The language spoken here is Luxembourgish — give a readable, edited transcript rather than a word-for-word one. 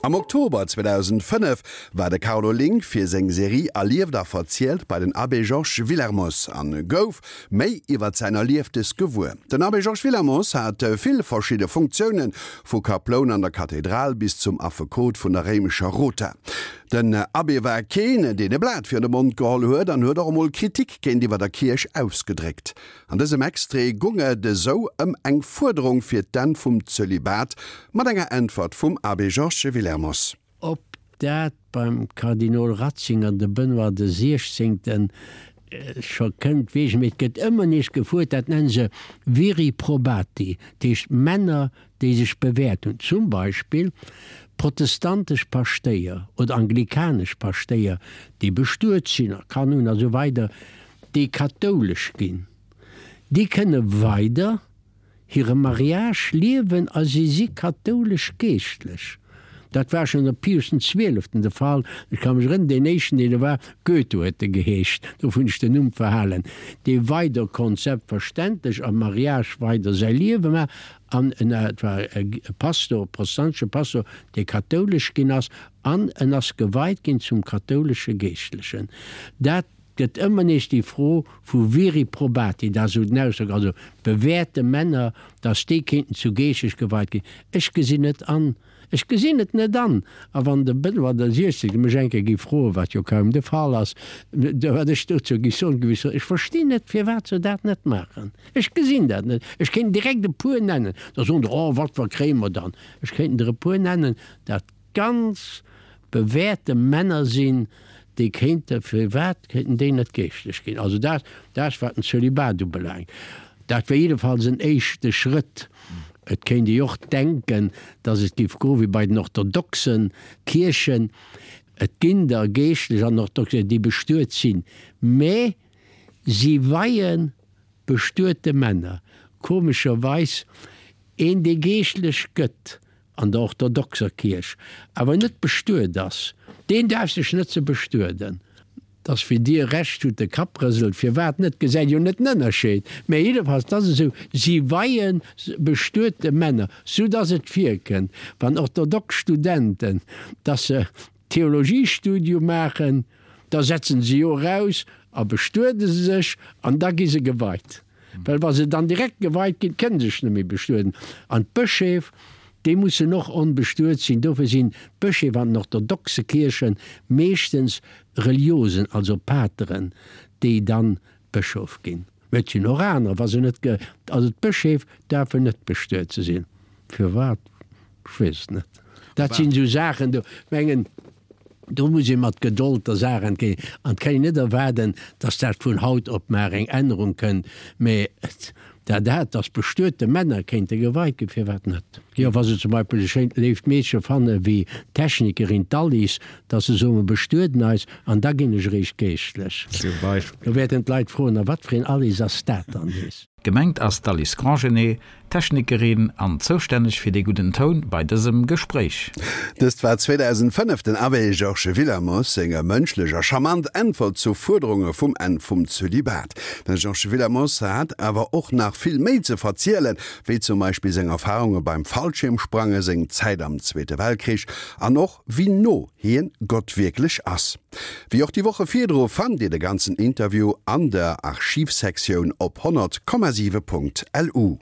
Am Oktober 2005 war de Carlo Link fir seng Serie Erlieft a verzielt bei den Abbé Georges Willermoz an gouf méi iwwert säin Erlieftes gewuer. Den Abbé Georges Willermoz hat vill verschidde Funktiounen, vu Kaploun an der Kathedral bis zum Affekot vun der réimescher Rota. Den Abbé war keen, deen e Blat virun de Mond geholl huet an huet och emol Kritik géintiwwer der Kierch ausgedréckt. An dësem Extrait gung et esou ëm eng Fuerderung fir d'Enn vum Zölibat, mat enger Äntwert vum Abbé Georges Willermoz. Ob dat beim Kardinol Ratzinger, de Benoît de Siechzéngten, scho kënnt, weess ech, mee et gëtt ëmmer nees gefuert, dat nennen se viri probati, dat heescht Männer, déi sech bewäert hunn, zum Beispill protestantesch Paschtéier oder anglikanesch Paschtéier, déi bestuet sinn a Kanner hunn a sou weider, déi kathoulesch ginn, déi kënne weider hire Mariage liewen a si si kathoulesch Geeschtlech. Dat war schonn ënner Pius den Zwieleften de Fall. Ech ka mech erënneren, deen éischten, deen do war, Goethe huet e geheescht, dofir hunn ech den Numm verhalen, dee weider konnt selbstverständlech am Mariage weider säi Liewe maachen an en, et war e Pastor, e protestantesche Pastor, dee kathoulesch ginn ass an en ass geweit ginn zum kathoulesche Geeschtlechen. Dat gëtt ëmmer nees déi Fro vu viri probati, dat ass esou den Ausdrock, also bewährte Männer, datt déi kéinten zu Geeschtlech geweit ginn. Ech gesinn net an, ech gesinn et net an, a wann de Benoît de Siechzehnte mech eng Kéier géif froen, wat jo kaum de Fall ass, wat ech dozou géif soen, géif ech soen, ech verstinn net, firwat se dat net maachen. Ech gesinn dat net. Ech kéint direkt e puer nennen, da soen der, oh, wat, wat kréie mer dann? Ech kéinten der e puer nennen, dat ganz bewährte Männer sinn, déi kéinte, firwat kéinten déi net geeschtlech ginn? Also dat, dat wat den Zölibat ubelaangt, dat wär jiddefalls en éischte Schrëtt. Et kéint ee jo och denken, datt et géif goe wéi bei den orthodoxen Kierchen, et ginn der Geeschtlech an orthodox, déi bestuet sinn, mä si weie bestuete Männer, komescherweis een, dee geeschtlech gëtt, an der orthodoxer Kierch awer net bestuet ass, deen daerf sech net ze bestueden. Dass wéi Dir Recht hutt, de Kapp rëselt, firwat net, gesäit jo net den Ënnerscheed, mä jiddefalls, et ass esou, si weie bestuete Männer, sou dass et virkënnt, wann orthodox Studenten, dass se Theologiestudium maachen, da setzen se jo eraus a bestuede sech an da gi se geweit. Well wa se dann direkt geweit ginn, kënne se sech net méi bestueden. An d'Bëscheef, déi mussen och onbestuet sinn. Dofir sinn d'Bëscheef an den orthodoxe Kierche meeschtens Reliosen, also Pateren, déi dann Bëschof ginn. Mä et sinn och anerer, wa se net ge, also d'Bëscheef daerfen net bestuet ze sinn. Firwat? Ech weess et net. Dat sinn esou Saachen, do mengen, do muss ee mat Gedold der Saach entgéint. An et kann een net erwaarden, datt dat vun haut op mar eng Ännerung kënnt. Mä dat, dat, datt bestuete Männer kéinte geweit ginn, firwat net? Jo, wa se zum Beispill e schéint léift Meedche fanne wéi d'Technikerin, d'Alice, datt se soen, mer bestueden eis an da ginn ech eréischt geeschtlech. Zum Beispill. Do wäerten d'Leit froen, A wat fir een Alice ass dat dann nees? Gemengt ass d'Alice Grandgenet, Technikerin an zoustänneg fir dee gudden Toun bei dësem Gespréich. Dëst war 2005 den Abbé Georges Willermoz seng mënschlech a charmant Äntwert zu Fuerderunge vum Enn vum Zölibat. Den Georges Willermoz hat awer och nach vill méi ze verzielen, wéi zum Beispill seng Erfarunge beim Fallschiermsprange, seng Zäit am Zweete Weltkrich an och wéi no hien Gott wierklech ass. Wéi och déi Woche virdru fannt Dir de ganzen Interview an der Archivsektioun op 100,7.lu.